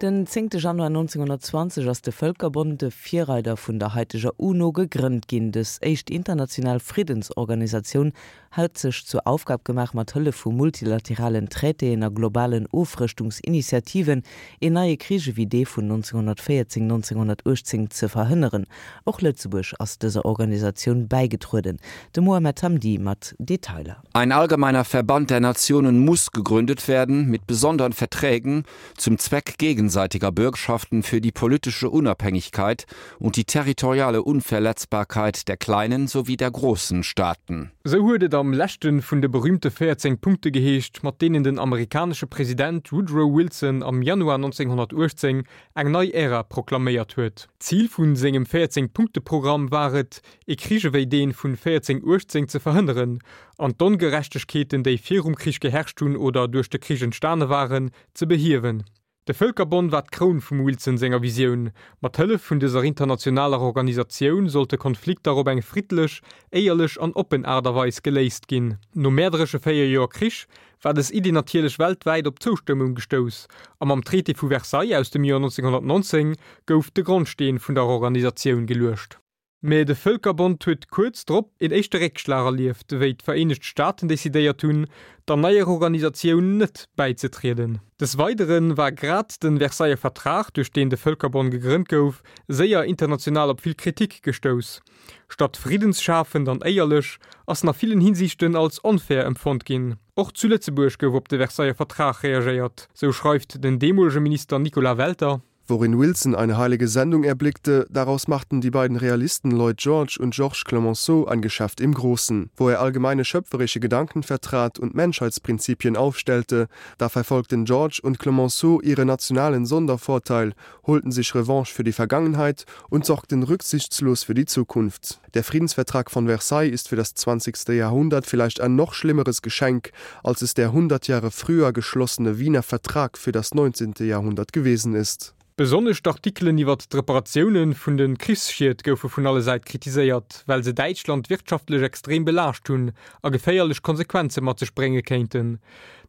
Den zéngte Januar 1920 ass de Vëlkerbond, de Virreider vun der haiteger UNO, gegrënnt ginn. Dës éischt international Friddensorganisatioun hat sech zur Aufgab gemaach, mat Hëllef vu multilateralen Traitéen a globalen Ofrëschtungsinitiativen een neie Krich ewéi dee vun 1914, 1918 ze verhënneren. Och Lëtzebuerg ass dëser Organisatioun bäigetrueden. De Mohamed Hamdi mat Detailer. Ein allgemeiner Verband der Nationen muss gegründet werden mit besonderen Verträgen zum Zweck gegenseitiger Bürgschaften für die politische Unabhängigkeit und die territoriale Unverletzbarkeit der kleinen sowie der großen Staaten. Sou huet et am leschte vun de berüümte 14 Punkte geheescht, mat deenen den amerikanesche President Woodrow Wilson am Januar 1918 eng nei Ära proklaméiert huet. Zil vu sengem 14 Punkte-Programm war et, ee Krich ewéi dee vun 1418 ze verhënneren an d'Ongerechtegkeeten, déi virum Krich geherrscht hunn oder duerch de Krich entstane waren, ze behiewen. De Vëlkerbonn war d'Kroun vum Wilson senger Visioun. Mat Hëllef vun dëser internationaler Organisatioun sollte Konflikter op eng friddlech, éierlech an oppen Aart a Weis geléist ginn. No mäerderesche 4 Joer Krich war dës Iddi natierlech weltwäit op Zoustëmmung gestouss a mam Traité vu Versailles aus dem Joer 1919 gouf de Grondsteen vun der Organisatioun geluecht. Mä de Vëlkerbond huet kuerz drop een éischte Réckschlag erlieft, wéi d'Vereenegt Staaten decidéiert hunn, der neier Organisatioun net bäizetrieden. Des Weidere war grad de Versailler Vertrag, duerch deen de Vëlkerbond gegrënnt gouf, séier international op vill Kritik gestouss. Statt friddensschafend an éierlech, ass en a villen Hinsiichten als onfair empfonnt ginn. Och zu Lëtzebuerg gouf op de Versailler Vertrag reagéiert, sou schreift den deemolege Minister Nicolas Welter. Worin Wilson eine heilige Sendung erblickte, daraus machten die beiden Realisten Lloyd George und Georges Clemenceau ein Geschäft im Großen. Wo er allgemeine schöpferische Gedanken vertrat und Menschheitsprinzipien aufstellte, da verfolgten George und Clemenceau ihre nationalen Sondervorteil, holten sich Revanche für die Vergangenheit und sorgten rücksichtslos für die Zukunft. Der Friedensvertrag von Versailles ist für das 20. Jahrhundert vielleicht ein noch schlimmeres Geschenk, als es der 100 Jahre früher geschlossene Wiener Vertrag für das 19. Jahrhundert gewesen ist. Besonnesch d'Artikelen iwwert d'Reparatioune vun de Krichsschied goufe vun alle Säit kritiséiert, well se Däitschland wirtschaftlech extrem belaascht hunn a geféierlech Konsequenze mat sech brénge kéinten.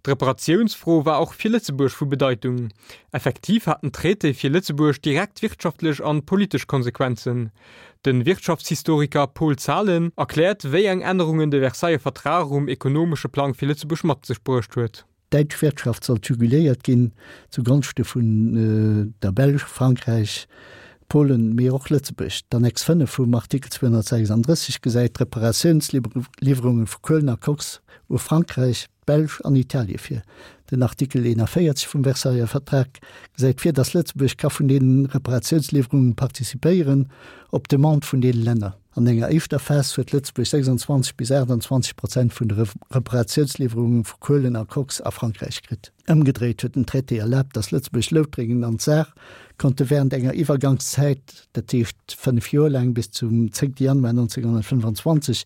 D'Reparatiounsfro war och fir Lëtzebuerg vu Bedeitung. Effektiv hat den Traité fir Lëtzebuerg direkt wirtschaftlech an politesch Konsequenzen. De Wirtschaftshistoriker Paul Zahlen erkläert, wéi eng Ännerungen de Versailler Vertrag um ekonomesche Plang fir Lëtzebuerg mat sech bruecht huet. D'däitsch Wirtschaft sollt juguléiert ginn, zu Gonschte vun der Belsch, Frankräich, Polen, mee och Lëtzebuerg. D'Annex 5 vum Artikel 236 gesäit d'Reparatiounsliwwerunge vu Kuelen a Koks u Frankräich, d'Belsch an Italie vir. Den Artikel 41 vum Versailler Vertrag gesäit vir, datt Lëtzebuerg ka vun deenen Reparatiounsliwwerungen participéieren, op Demande vun deene Länner. An enger éischter Phas huet Lëtzebuerg 26 bis 28 Prozent vun de Reparatiounsliwwerungen vu Kuelen a Koks a Frankräich kritt. Ëmgedréit huet den Traité erlaabt, datt Lëtzebuerg, Loutrengen an d'Saar konnte während enger Iwwergangszäit, dat heescht 5 Joer laang, bis zum 10 Januar 1925,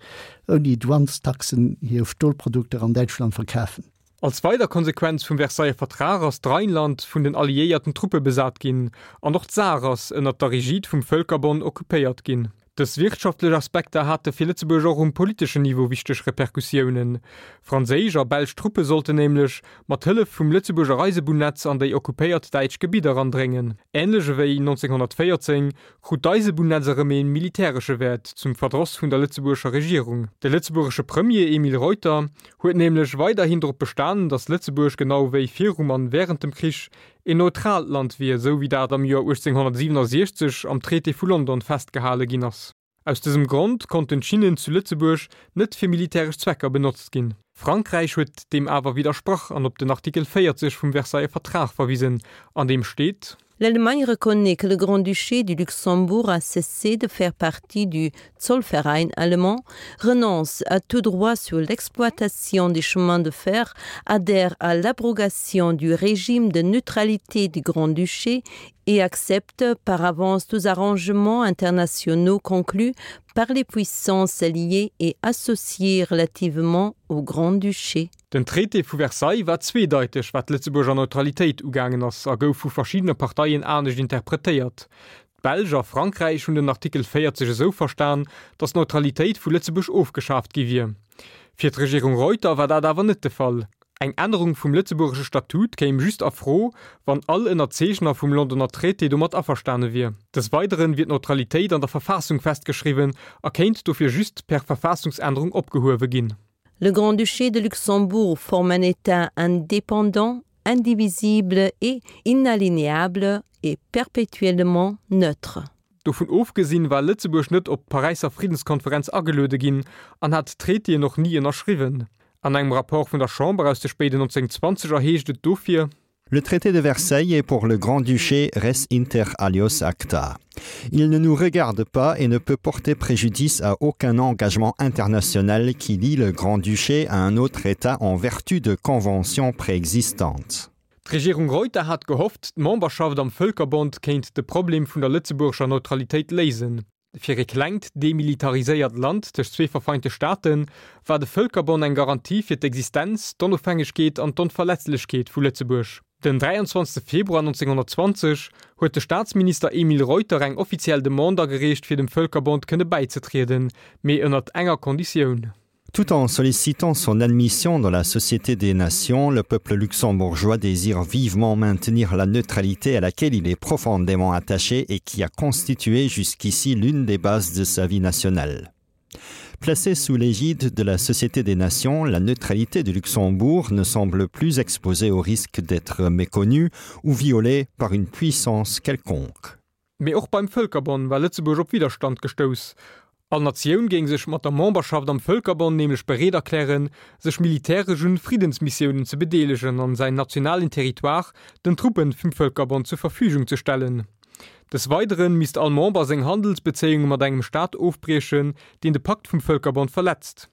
ouni Douanestaxen hir Stolprodukter an Däitschland verkafen. Als weider Konsequenz vum Versailler Vertrag ass d'Rheinland vun den alliéierten Truppe besat ginn an och d'Saar ass ënnert der Rigide vum Vëlkerbond occupéiert ginn. Dës wirtschaftlech Aspekter hate fir Lëtzebuerg och um politeschen Niveau wichteg Repercussiounen. Franséisch a belsch Truppe sollten nämlech mat Hëllef vum Lëtzebuerger Eisebunnetz an déi occupéiert däitsch Gebidder andréngen. Änlech ewéi 1914 krut d'Eisebunnetz erëm ee militäresche Wäert, zum Verdross vun der lëtzebuergescher Regierung. De lëtzebuergesche Premier Emile Reuter huet nämlech weiderhin drop bestanen, datt Lëtzebuerg genau wéi virum an wärend dem Krich een neutraalt Land wier, esou wéi dat am Joer 1867 am Traité vu London festgehale ginn ass. Aus dësem Grond konnten d'Schinnen zu Lëtzebuerg net fir militäresch Zwecker benotzt ginn. Frankräich huet deem awer widdersprach an op den Artikel 40 vum Versailler Vertrag verwisen, an deem steet. L'Allemagne reconnaît que le Grand-Duché du Luxembourg a cessé de faire partie du Zollverein allemand, renonce à tout droit sur l'exploitation des chemins de fer, adhère à l'abrogation du régime de neutralité du Grand-Duché et accepte par avance tous arrangements internationaux conclus par les puissances alliées et associées relativement au Grand-Duché. Den Traité vu Versailles war zweedeiteg wat d'Lëtzebuerger Neutralitéit ugaangen ass a gouf vu verschiddene Parteien anescht interpretéiert. D'Belsch a Frankräich hunn den Artikel 40 esou verstan, datt d'Neutralitéit vu Lëtzebuerg ofgeschaaft gi wier. Fir d'Regierung Reuter war dat awer net de Fall. Eng Ännerung vum lëtzebuergesche Statut kéim just a Fro, wann all Ënnerzeechner vum Londoner Traité domat averstane wier. Des Weideren wier d'Neutralitéit an der Verfassung festgeschriwwen a kéint dofir just per Verfassungsännerung opgehuewe ginn. Le Grand-Duché de Luxembourg forme un État indépendant, indivisible et inaliénable et perpétuellement neutre. Dovun ofgesinn war Lëtzebuerg net op d'Paräisser Friddenskonferenz ageluede ginn an hat d'Traitéen och ni ënnerschriwwen. An engem Rapport vun der Chamber aus de spéiden 1920er heescht et dofir. Le traité de Versailles est pour le Grand-Duché res inter alios acta. Il ne nous regarde pas et ne peut porter préjudice à aucun engagement international qui lie le Grand-Duché à un autre État en vertu de conventions préexistantes. D'Regierung Reuter hat gehofft, d'Memberschaft am Vëlkerbond kéint de Problem vun der lëtzebuergescher Neutralitéit léisen. Fir e klengt, demilitariséiert Land tëscht zwee verfeinte Staate war de Vëlkerbond eng Garantie fir d'Existenz, d'Onofhängegkeet an d'Onverletzlechkeet vu Lëtzebuerg. Den 23 Februar 1920 huet de Staatsminister Emile Reuter eng offiziell Demande agereecht fir dem Vëlkerbond kënne bäizetrieden, mee ënnert enger Konditioun. Tout en sollicitant son admission dans la Société des Nations, le peuple luxembourgeois désire vivement maintenir la neutralité à laquelle il est profondément attaché et qui a constitué jusqu'ici l'une des bases de sa vie nationale. Placée sous l'égide de la Société des Nations, la neutralité du Luxembourg ne semble plus exposée au risque d'être méconnue ou violée par une puissance quelconque. Mee och beim Vëlkerbonn war Lëtzebuerg op Widderstand gestouss. All Natioun géing sech mat der Memberschaft am Vëlkerbonn nämlech bereet erklären, sech militäresch un Friddensmissiounen ze bedeelegen an säin nationalen Territoire den Truppen vum Vëlkerbond zur Verfügung ze stellen. Des Weideren misst all Member seng Handelsbezéiunge mat engem Staat ofbriechen, deen de Pakt vum Vëlkerbond verletzt.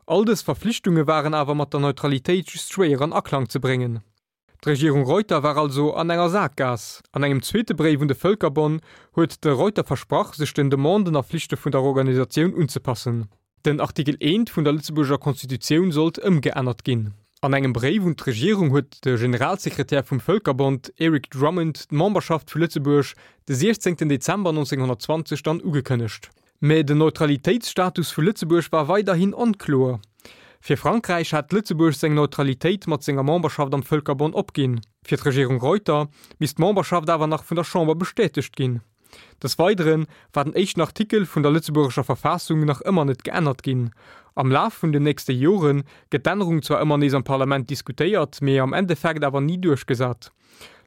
All dës Verflichtunge waren awer mat der Neutralitéit just schwéier an Aklang ze bréngen. D'Regierung Reuter war also an enger Sakgaass. An engem zweete Bréif un de Vëlkerbonn huet de Reuter versprach, sech den Demanden a Flichte vun der Organisatioun unzepassen. Den Artikel I vun der Lëtzebuerger Constitutioun sollt ëmgeännert ginn. An engem Bréif un d'Regierung huet de Generalsekretär vum Vëlkerbond, Eric Drummond, d'Memberschaft vu Lëtzebuerg de 16 Dezember 1920 dann ugekënnegt. Mä den Neutralitéitsstatus vu Lëtzebuerg war weiderhin onkloer. Fir Frankräich hat Lëtzebuerg seng Neutralitéit mat senger Memberschaft am Vëlkerbond opginn. Fir d'Regierung Reuter misst d'Memberschaft awer nach vun der Chamber bestätegt ginn. Des Weidere war den éischten Artikel vun der lëtzebuergescher Verfassung nach ëmmer net geännert ginn. Am Laf vun den nächste Jore gëtt d'Ännerung zwar ëmmer nees am Parlament diskutéiert, mee am Endeffekt awer ni duerchgesat.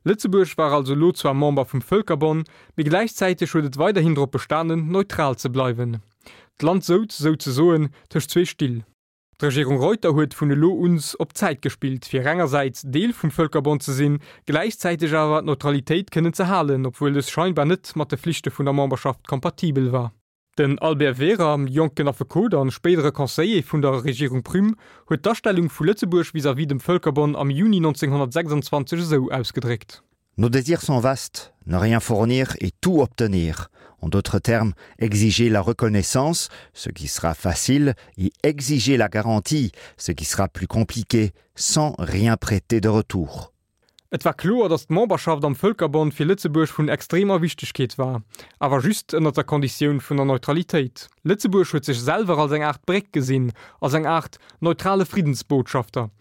Lëtzebuerg war also elo zwar Member vum Vëlkerbonn, mee gläichzäiteg huet et weiderhin drop bestanen, neutral ze bleiwen. D'Land souz souzesoen tëscht zwee Still. D'Regierung Reuter huet vun elo uns op Zäit gespillt, fir engersäits Deel vum Vëlkerbond ze sinn, gläichzäiteg awer d'Neutralitéit kënnen ze halen, obwuel dës scheinbar net mat de Flichte vun der Memberschaft kompatibel war. Den Albert Wehrer, jonken Affekot an spéidere Conseiller vun der Regierung Prüm, huet d'Astellung vu Lëtzebuerg vis-à-vis dem Vëlkerbonn am Juni 1926 esou ausgedréckt. Nos désirs sont vastes, ne rien fournir et tout obtenir. En d'autres termes, exiger la reconnaissance, ce qui sera facile, et exiger la garantie, ce qui sera plus compliqué, sans rien prêter de retour. Et war kloer, datt d'Memberschaft am Vëlkerbond fir Lëtzebuerg vun extremer Wichtegkeet war, awer just ënner der Konditioun vun der Neutralitéit. Lëtzebuerg huet sech selwer als eng Aart Bréck gesinn, als eng Aart neutrale Friddensbotschafter.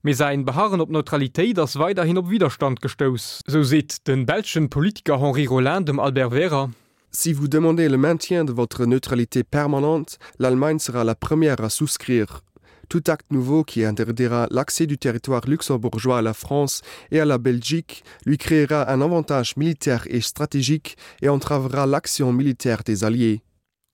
Mee säin Beharren op Neutralitéit ass weiderhin op Widderstand gestouss. Sou seet de belschen Politiker Henri Rolin dem Albert Wehrer. Si vous demandez le maintien de votre neutralité permanente, l'Allemagne sera la première à souscrire. Tout acte nouveau qui interdira l'accès du territoire luxembourgeois à la France et à la Belgique lui créera un avantage militaire et stratégique et entravera l'action militaire des alliés.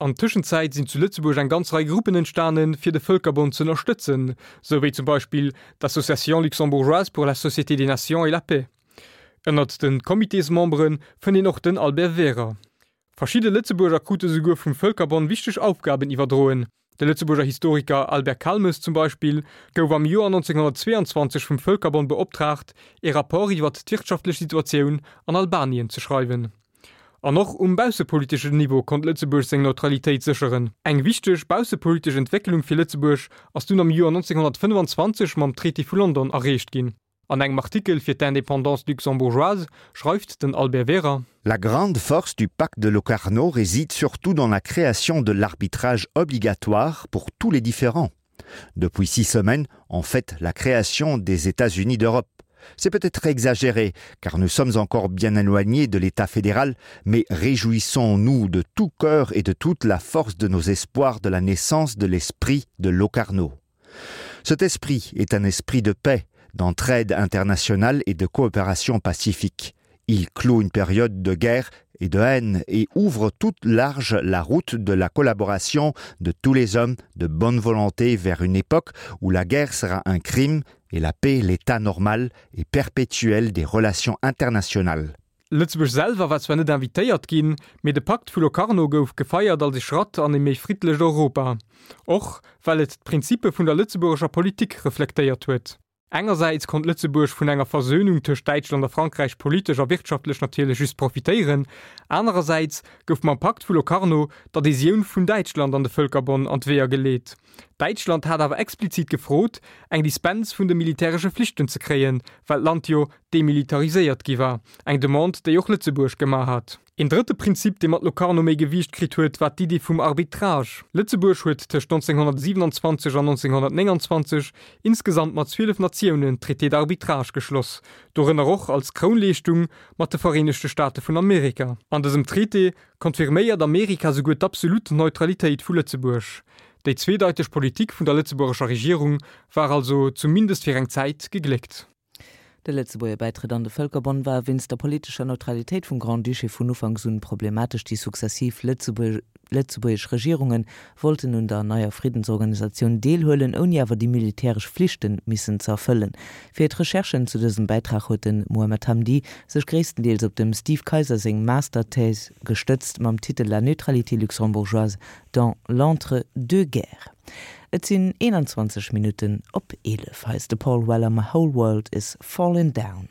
An Tëschenzäit sinn zu Lëtzebuerg eng ganz Rei Gruppen entstanen, fir de Vëlkerbond z'ënnerstëtzen, sou wéi zum Beispill d'Association luxembourgeoise pour la Société des Nations et la Paix. Ënnert de Comitésmembere fënnt een och den Albert Wehrer. Verschidde Lëtzebuerger krute souguer vum Vëlkerbond wichteg Aufgaben iwwerdroen. De Lëtzebuerger Historiker Albert Calmes zum Beispill gouf am Joer 1922 vum Vëlkerbond beoptraagt, ee Rapport iwwert d'wirtschaftlech Situatioun an Albanien ze schreiwen. An och um baussepoliteschen Niveau konnt Lëtzebuerg seng Neutralitéit sécheren. Eng wichteg baussepolitesch Entwécklung fir Lëtzebuerg ass dunn am Joer 1925 mam Traité vu London erreecht ginn. An engem Artikel fir d'Indépendance luxembourgeoise schreift den Albert Wehrer. La grande force du pacte de Locarno réside surtout dans la création de l'arbitrage obligatoire pour tous les différents. Depuis six semaines, on fête la création des États-Unis d'Europe. C'est peut-être exagéré, car nous sommes encore bien éloignés de l'État fédéral, mais réjouissons-nous de tout cœur et de toute la force de nos espoirs de la naissance de l'esprit de Locarno. Cet esprit est un esprit de paix, d'entraide internationale et de coopération pacifique. Il clôt une période de guerre et de haine et ouvre toute large la route de la collaboration de tous les hommes de bonne volonté vers une époque où la guerre sera un crime et la paix l'état normal et perpétuel des relations internationales. Lëtzebuerg selwer war zwar net invitéiert ginn, mee de Pakt vu Locarno gouf gefeiert als e Schratt an e méi friddlecht Europa, och well et d'Prinzippe vun der lëtzebuergescher Politik reflektéiert huet. Engersäits konnt Lëtzebuerg vun enger Versönung tëscht Däitschland a Frankräich politesch a wirtschaftlech natierlech just profitéieren, anerersäits gouf mam Pakt vu Locarno d'Adhesioun vun Däitschland an de Vëlkerbonn an d'Weeër geleet. Däitschland hat awer explizit gefrot, eng Dispens vun de militäresche Flichten ze kréien, well d'Land jo demilitariséiert gi war, eng Demande, déi och Lëtzebuerg gemaach hat. Een drëtte Prinzip, dee mat Locarno méi Gewiicht kritt huet, war d'Iddi vum Arbitrage. Lëtzebuerg huet tëscht 1927 an 1929 insgesamt mat 12 Natiounen Traités d'arbitrage geschloss, dorënner och als Krounleeschtung mat de Vereenegte Staate vun Amerika. An dësem Traité confirméiert Amerika souguer d'absolut Neutralitéit vu Lëtzebuerg. Déi zweedeiteg Politik vun der lëtzebuergescher Regierung war also, zumindest fir eng Zäit, gegléckt. De Lëtzebuerger Bäitrëtt an de Vëlkerbond war wéinst der politescher Neutralitéit vum Grand-Duché vun Ufanks un problematesch. Déi successiv lëtzebuergesch Regierunge wollten un der neier Friddensorganisatioun deelhuelen, ouni awer déi militäresch Flichte missen ze erfëllen. Fir d'Recherchen zu dësem Bäitrag huet de Mohamed Hamdi sech gréisstendeels op dem Steve Kayser seng Masterthèse gestëtzt mam Titel La neutralité luxembourgeoise dans l'entre-deux-guerres. Et sinn 21 Minutten op 11. Hei ass de Paul Weller, My Whole World Is Fallin' Down.